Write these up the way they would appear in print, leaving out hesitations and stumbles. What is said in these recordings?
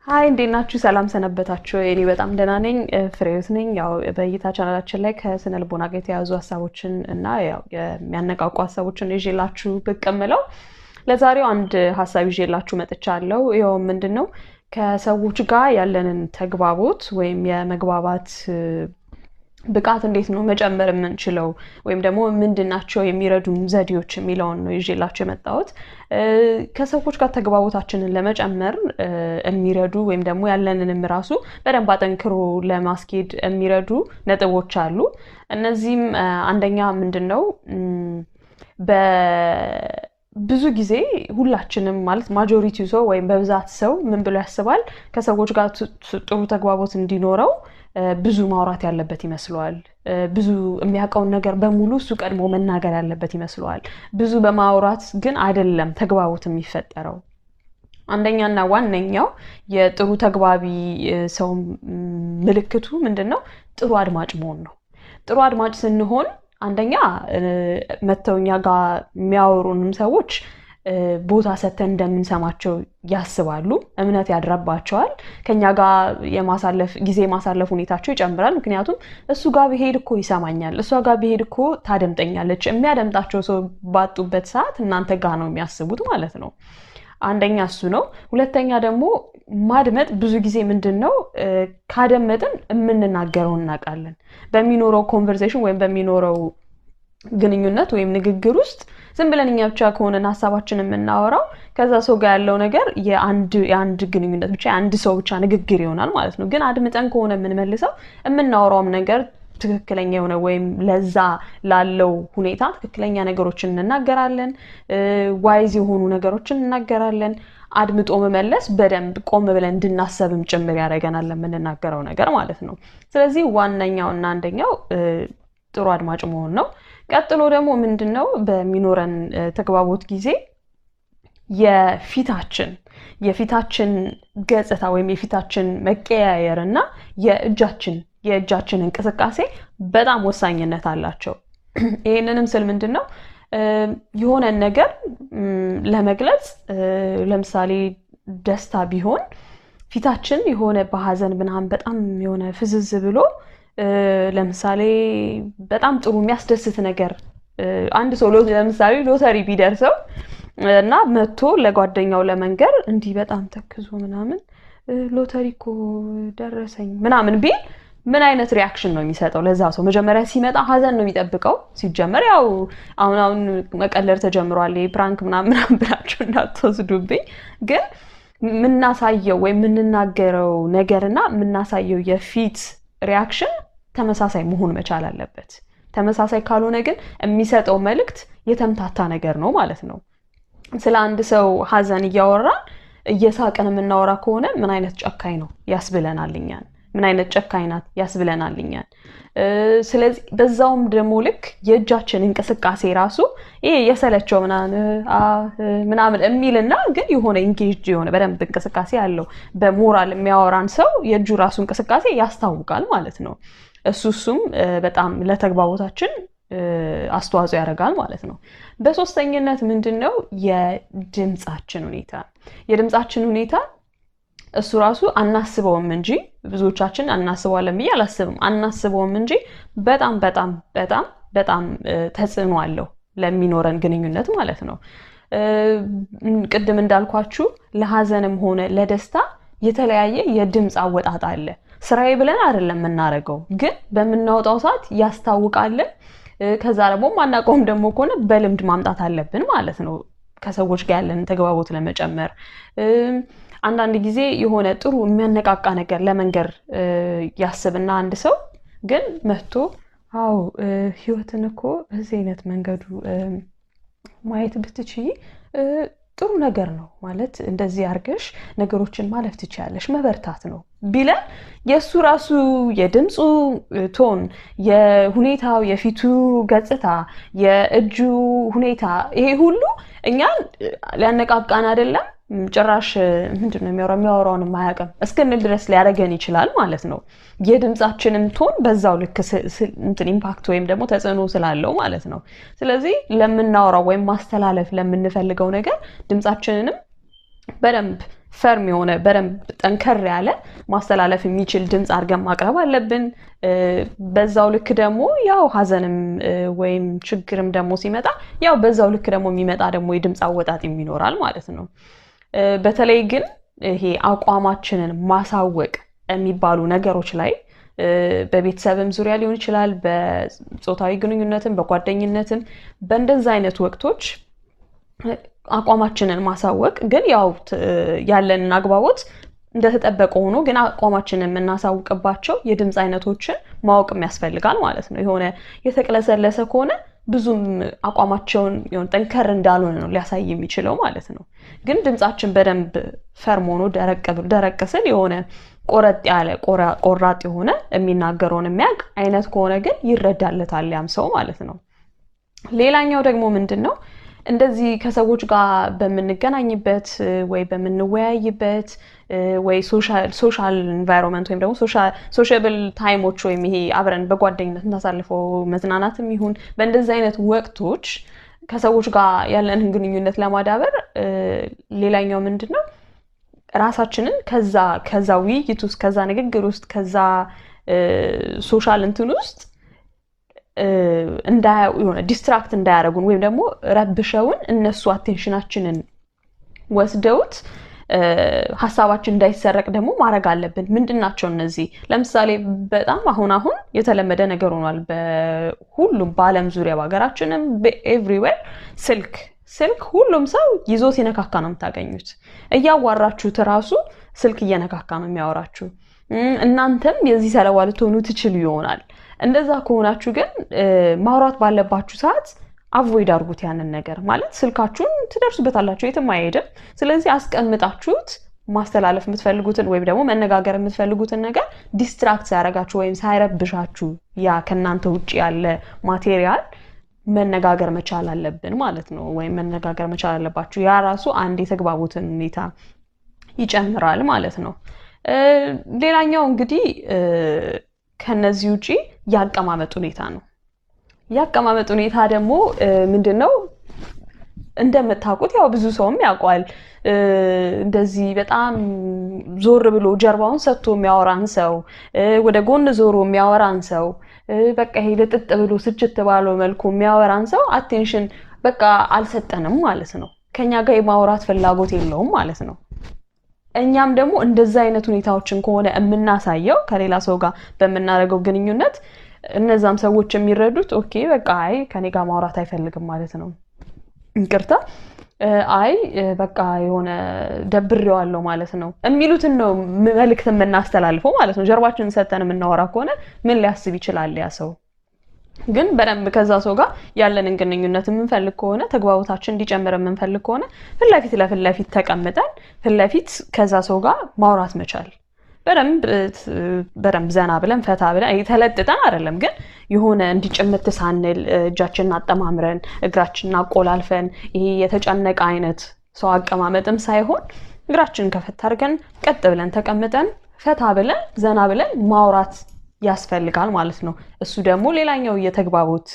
ሃይ እንዴናችሁ ሰላም ሰነበታችሁ እኔ በጣም ደህና ነኝ ፍሬውት ነኝ ያው በእይታ ቻናላችን ላይ ከስነ ልቦና ጋር የተያዙ ሐሳቦችን እና ያው የሚያነቃቁ ሐሳቦችን ይዤላችሁ ብቅ እምለው ለዛሬው አንድ ሐሳብ ይዤላችሁ መጥቻለሁ ይሄው ምንድነው ከሰዎች ጋር ያለንን ተግባቦት ወይም የመግባባት ብቃት እንዴት ነው መጨመር የምንችለው ወይም ደግሞ ምንድናቸው የሚረዱን ዘዴዎች የሚለውን ነው ይዤላችሁ የመጣሁት ከሰዎች ጋር ተግባቦታችንን ለመጨመር የሚረዱ ወይም ደግሞ ያለንንም ራሱ በደንብ አጠንክሮ ለማስኬድ የሚረዱ ነጥቦች አሉ እነዚህም አንደኛ ምንድነው ብዙ ጊዜ ሁላችንም ማለት ማጆሪቲው ሰው ወይም በብዛት ሰው ምን ብሎ ያስባል ከሰዎች ጋር ጥሩ ተግባቦት እንዲኖረው ብዙ ማውራት ያለበት ይመስላል ብዙ የሚያውቀውን ነገር በሙሉ እሱ ቀድሞ መናገር ያለበት ይመስላል ብዙ በማውራት ግን አይደለም ተግባቦት የሚፈጠረው አንደኛና ዋነኛው የጥሩ ተግባቢ ሰው ምልክቱ ምንድነው ጥሩ አድማጭ መሆን ነው ጥሩ አድማጭ ስንሆን አንደኛ መተውኛ ጋር የሚያወሩንም ሰዎች ቦታ ሰተን እንደምንሰማቸው ያስባሉ እምነት ያድራባቸዋል ከኛ ጋር የማሳለፍ ጊዜ ማሳለፍ ሁኔታቸው ይጨምራል ምክንያቱም እሱ ጋር ቢሄድ እኮ ይሰማኛል እሷ ጋር ቢሄድ እኮ ታደምጠኛለች የሚያደምጣቸው ሰው ባጡበት ሰዓት እናንተ ጋር ነው የሚያስቡት ማለት ነው አንደኛ እሱ ነው ሁለተኛ ደግሞ ማድመጥ ብዙ ጊዜ ምንድነው ካደመጥን የምንናገረው እናቃለን በሚኖረው ኮንቨርሴሽን ወይም በሚኖረው ግንኙነት ወይም ንግግር ውስጥ ዝም ብለን እኛ ብቻ ከሆነን ሐሳባችንን የምናወራው ከዛ ሰው ጋር ያለው ነገር የአንድ ግንኙነት ብቻ አንድ ሰው ብቻ ንግግር ይሆናል ማለት ነው ግን አድምጠን ከሆነ የምንመልሰው የምናወራውም ነገር ትክክለኛ የሆነ ወይም ለዛ ላለው ሁኔታ ትክክለኛ ነገሮችን እንናገራለን ዋይዝ የሆኑ ነገሮችን እንናገራለን አድምጦ መመለስ በደንብ ቆም ብለን እንድናሰብም ጭምር ያደርገናል ለምንናገረው ነገር ማለት ነው ስለዚህ ዋነኛውና አንደኛው ጥሩ አድማጭ መሆን ነው ቀጥሎ ደግሞ ምንድነው በሚኖረን ተግባቦት ጊዜ የፊታችን ገጽታ ወይም የፊታችን መቀያየርና የእጃችን እንቅስቃሴ በጣም ወሳኝነት አላቸው ይሄንንም ስል ምንድነው የሆነ ነገር ለመግለጽ ለምሳሌ ደስታ ቢሆን ፊታችን የሆነ በሐዘን ምናምን በጣም የሆነ ፍዝዝ ብሎ ለምሳሌ በጣም ጥሩ የሚያስደስት ነገር አንድ ሰው ለምሳሌ ሎተሪ ቢደርሰው እና መጥቶ ለጓደኛው ለመንገር እንዲህ በጣም ተክዞ ምናምን ሎተሪ እኮ ደረሰኝ ምናምን ቢል ምን አይነት ሪአክሽን ነው የሚሰጠው ለዛ ሰው መጀመሪያ ሲመጣ ሐዘን ነው የሚጠብቀው ሲጀመር ያው አሁን መቀለር ተጀምሯል ፕራንክ ምናምን ብላችሁ እንዳትወስዱብኝ ግን ምናሳየው ወይ ምንናገረው ነገርና ምናሳየው የፊት ሪአክሽን ተመሳሳይ መሆን መቻል አለበት ተመሳሳይ ካልሆነ ግን የሚሰጠው መልእክት የተምታታ ነገር ነው ማለት ነው ስለ አንድ ሰው ሐዘን እያወራን እየሳቀን የምናወራ ከሆነ ምን አይነት ጨካኝ ነው ያስብለናልኛል ምን አይነት ጨካኝ ናት ያስብለናልኛል ስለዚህ በዛውም ደግሞ ልክ የእጃችን እንቅስቃሴ ራሱ ይሄ የሰለቸው ምናምን የሚልና ግን የሆነ ኢንጌጅ የሆነ በደንብ እንቅስቃሴ ያለው በሞራል የሚያወራን ሰው የእጁ ራሱ እንቅስቃሴ ያስታውቃል ማለት ነው እሱም በጣም ለተግባቦታችን አስተዋጽኦ ያደርጋል ማለት ነው በሶስተኝነት ምንድነው የድምጻችን ሁኔታ እሱ ራሱ አናስበውም እንጂ ብዙዎቻችን አናስበዋለን ብዬ አላስብም አናስበውም እንጂ በጣም ተጽዕኖ አለው ለሚኖረን ግንኙነት ማለት ነው ቅድም እንዳልኳችሁ ለሐዘንም ሆነ ለደስታ የተለያየ የድምጽ አወጣጥ አለ ስራዬ ብለን አይደለም እናረጋው ግን በመናወጣው ሰዓት ያስታውቃል ከዛ ደግሞ ማናቆም ደግሞ ከሆነ በልምድ ማምጣት አለብን ማለት ነው ከሰዎች ጋር ያለን ተግባቦት ለመጨመር አንዳንድ ጊዜ የሆነ ጥሩ የሚያነቃቃ ነገር ለመንገር ያስብና አንድ ሰው ግን መጥቶ ህይወትን እኮ በዚህ አይነት መንገዱ ማየት ብትችይ ጥሩ ነገር ነው ማለት እንደዚህ አርገሽ ነገሮችን ማለፍ ትችያለሽ መበርታት ነው ቢለ የሱ ራሱ የድምጹ ቶን የሁኔታው የፊቱ ገጽታ የእጁ ሁኔታ ይሄ ሁሉ እኛን ሊያነቃቃን አይደለም ጭራሽ ምንድነው የሚያወራውን ማያቀም እስከንል ድረስ ሊያረገን ይችላል ማለት ነው የድምጻችንም ቶን በዛው ልክ ኢምፓክት ወይም ደግሞ ተጽዕኖ ስላለው ማለት ነው ስለዚህ ለምናወራው ወይም ማስተላለፍ ለምንፈልገው ነገር ድምጻችንንም በደንብ ፈርም የሆነ በደንብ ጠንከር ያለ ማስተላለፍ የሚችል ድምጽ አድርገን ማቅረብ አለብን። በዛው ልክ ደግሞ ያው ሀዘንም ወይም ችግርም ደግሞ ሲመጣ ያው በዛው ልክ ደግሞ የሚመጣ ደግሞ የድምጽ አወጣጥ ይኖራል ማለት ነው። በተለይ ግን ይሄ አቋማችንን ማሳወቅ የሚባሉ ነገሮች ላይ በቤተሰብም ዙሪያ ሊሆን ይችላል፣ በጾታዊ ግንኙነትም በጓደኝነትም በእንደዛ አይነት ወቅቶች አቋማችንን ማሳወቅ ግን ያው ያለንን አግባቦት እንደተጠበቀ ሆኖ ግን አቋማችንን የምናሳውቅባቸው የድምጽ አይነቶችን ማወቅም ያስፈልጋል ማለት ነው። የሆነ የተቅለሰለሰ ከሆነ ብዙም አቋማቸውን የሆነ ጠንከር እንዳልሆነ ነው ሊያሳይ የሚችለው ማለት ነው። ግን ድምጻችን በደንብ ፈርም ሆኖ ደረቅ ስል የሆነ ቆረጥ ያለ ቆራጥ የሆነ የሚናገረውን የሚያውቅ አይነት ከሆነ ግን ይረዳለታል ያም ሰው ማለት ነው። ሌላኛው ደግሞ ምንድነው እንደዚህ ከሰዎች ጋር በመንገናኝበት ወይ በመንወያይበት ወይ ሶሻል ኢንቫይሮንመንት ወይም ደግሞ ሶሻብል ታይሞች ወይም ይሄ አብረን በጓደኝነት እናሳልፈው መዝናናትም ይሁን በእንደዚህ አይነት ወቅቶች ከሰዎች ጋር ያለንን ግንኙነት ለማዳበር ሌላኛው ምንድነው ራሳችንን ከዛ ውይይት ውስጥ ከዛ ንግግር ውስጥ ከዛ ሶሻል እንትን ውስጥ የሆነ ዲስትራክት እንዳያረጉን ወይም ደግሞ ረብሸውን እነሱ አቴንሽናችንን ወስደውት ሐሳባችን እንዳይሰረቅ ደግሞ ማድረግ አለብን። ምንድናቸው እነዚህ? ለምሳሌ በጣም አሁን የተለመደ ነገር ሆኗል በሁሉም በአለም ዙሪያ በአገራችንም ኤቭሪዌር ስልክ ሁሉም ሰው ይዞ ሲነካካ ነው የምታገኙት። እያዋራችሁት ራሱ ስልክ እየነካካ ነው የሚያወራችሁ። እናንተም የዚህ ሰለባ ልትሆኑ ትችሉ ይሆናል። እንደዛ ከሆናችሁ ግን ማውራት ባለባችሁ ሰዓት አቮይድ አድርጉት ያንን ነገር ማለት ስልካችሁን ትደርሱበታላችሁ የትም አይሄድም። ስለዚህ አስቀምጣችሁት ማስተላለፍ የምትፈልጉትን ወይም ደግሞ መነጋገር የምትፈልጉትን ነገር ዲስትራክት ሳያረጋችሁ ወይም ሳይረብሻችሁ ያ ከናንተ ውጪ ያለ ማቴሪያል መነጋገር መቻል አለብን ማለት ነው። ወይም መነጋገር መቻል አለባችሁ። ያ ራሱ አንድ የተግባቡትን ሁኔታ ይጨምራል ማለት ነው። ሌላኛው እንግዲህ ከነዚህ ውጪ ያቀማመጥ ሁኔታ ነው። ያቀማመጥ ሁኔታ ደግሞ ምንድነው እንደምታውቁት ያው ብዙ ሰውም ያውቃል። እንደዚህ በጣም ዞር ብሎ ጀርባውን ሰጥቶ የሚያወራን ሰው ወደ ጎን ዞሮ የሚያወራን ሰው በቃ ይሄ ለጥጥ ብሎ ስጭት ባለው መልኩ የሚያወራን ሰው አቴንሽን በቃ አልሰጠንም ማለት ነው። ከኛ ጋር የማውራት ፍላጎት የለውም ማለት ነው። እኛም ደግሞ እንደዛ አይነት ሁኔታዎችን ከሆነ የምናሳየው ከሌላ ሰው ጋር በመናረገው ግንኙነት እነዛም ሰዎች የሚረዱት ኦኬ በቃ አይ ከኔ ጋር ማውራት አይፈልግም ማለት ነው። እንቅርታ አይ በቃ የሆነ ደብሬዋለሁ ማለት ነው የሚሉትን ነው መልእክት የምናስተላልፈው ማለት ነው። ጀርባችንን ሰተን የምናወራ ከሆነ ምን ሊያስብ ይችላል ያ ሰው? ግን በደንብ ከዛ ሰው ጋር ያለንን ግንኙነት የምንፈልግ ከሆነ ተግባቦታችን እንዲጨምር የምንፈልግ ከሆነ ለፊት ተቀምጠን ለፊት ከዛ ሰው ጋር ማውራት መቻል በደንብ ዘና ብለን ፈታ ብለን ተለጥጠን አይደለም ግን የሆነ እንዲጭምት ሳንል እጃችንን አጠማምረን እግራችንን አቆላልፈን ይሄ የተጨነቀ አይነት ሰው አቀማመጥም ሳይሆን እግራችንን ከፈታ አድርገን ቀጥ ብለን ተቀምጠን ፈታ ብለን ዘና ብለን ማውራት ያስፈልጋል ማለት ነው። እሱ ደግሞ ሌላኛው የተግባቦት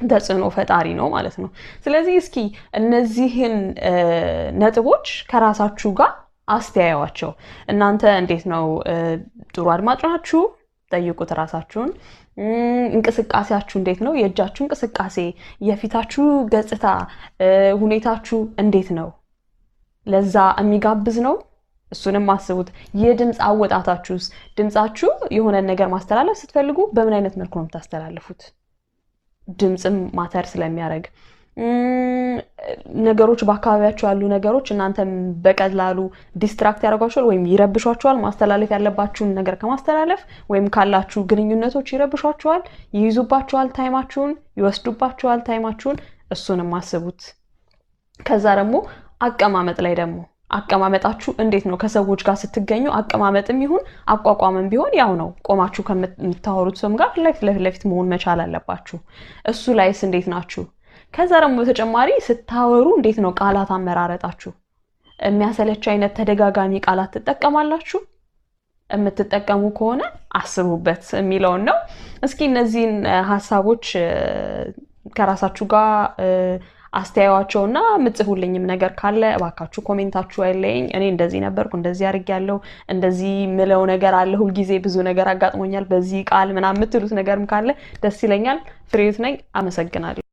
ተጽዕኖ ፈጣሪ ነው ማለት ነው። ስለዚህ እስኪ እነዚህን ነጥቦች ከራሳችሁ ጋር አስተያዩዋቸው። እናንተ እንዴት ነው? ጥሩ አድማጭ ናችሁ? ጠይቁት ራሳችሁን። እንቅስቃሴያችሁ እንዴት ነው? የእጃችሁ እንቅስቃሴ፣ የፊታችሁ ገጽታ፣ ሁኔታችሁ እንዴት ነው? ለዛ የሚጋብዝ ነው? እሱንም አስቡት። የድምጽ አወጣታችሁስ ድምጻችሁ የሆነ ነገር ማስተላለፍ ስትፈልጉ በምን አይነት መልኩ ነው የምታስተላልፉት? ድምጽም ማተር ስለሚያደርግ ነገሮች በአካባቢያችሁ ያሉ ነገሮች እናንተም በቀላሉ ዲስትራክት ያደርጓችኋል ወይም ይረብሿችኋል። ማስተላለፍ ያለባችሁን ነገር ከማስተላለፍ ወይም ካላችሁ ግንኙነቶች ይረብሿችኋል፣ ይይዙባችኋል ታይማችሁን፣ ይወስዱባችኋል ታይማችሁን። እሱንም አስቡት። ከዛ ደግሞ አቀማመጥ ላይ ደግሞ አቀማመጣችሁ እንዴት ነው? ከሰዎች ጋር ስትገኙ አቀማመጥም ይሁን አቋቋምም ቢሆን ያው ነው። ቆማችሁ ከምታወሩት ሰው ጋር ለፊት መሆን መቻል አለባችሁ። እሱ ላይስ እንዴት ናችሁ? ከዛ ደግሞ በተጨማሪ ስታወሩ እንዴት ነው ቃላት አመራረጣችሁ? የሚያሰለች አይነት ተደጋጋሚ ቃላት ትጠቀማላችሁ? የምትጠቀሙ ከሆነ አስቡበት የሚለውን ነው። እስኪ እነዚህን ሐሳቦች ከራሳችሁ ጋር አስተያየዋቸውና ምጽፉልኝም ነገር ካለ እባካችሁ ኮሜንታችሁ አይለኝ። እኔ እንደዚህ ነበርኩ፣ እንደዚህ አድርጌያለሁ፣ እንደዚህ ምለው ነገር አለ፣ ሁሉ ጊዜ ብዙ ነገር አጋጥሞኛል በዚህ ቃል ምናምን የምትሉት ነገርም ካለ ደስ ይለኛል። ፍሬህይወት ነኝ። አመሰግናለሁ።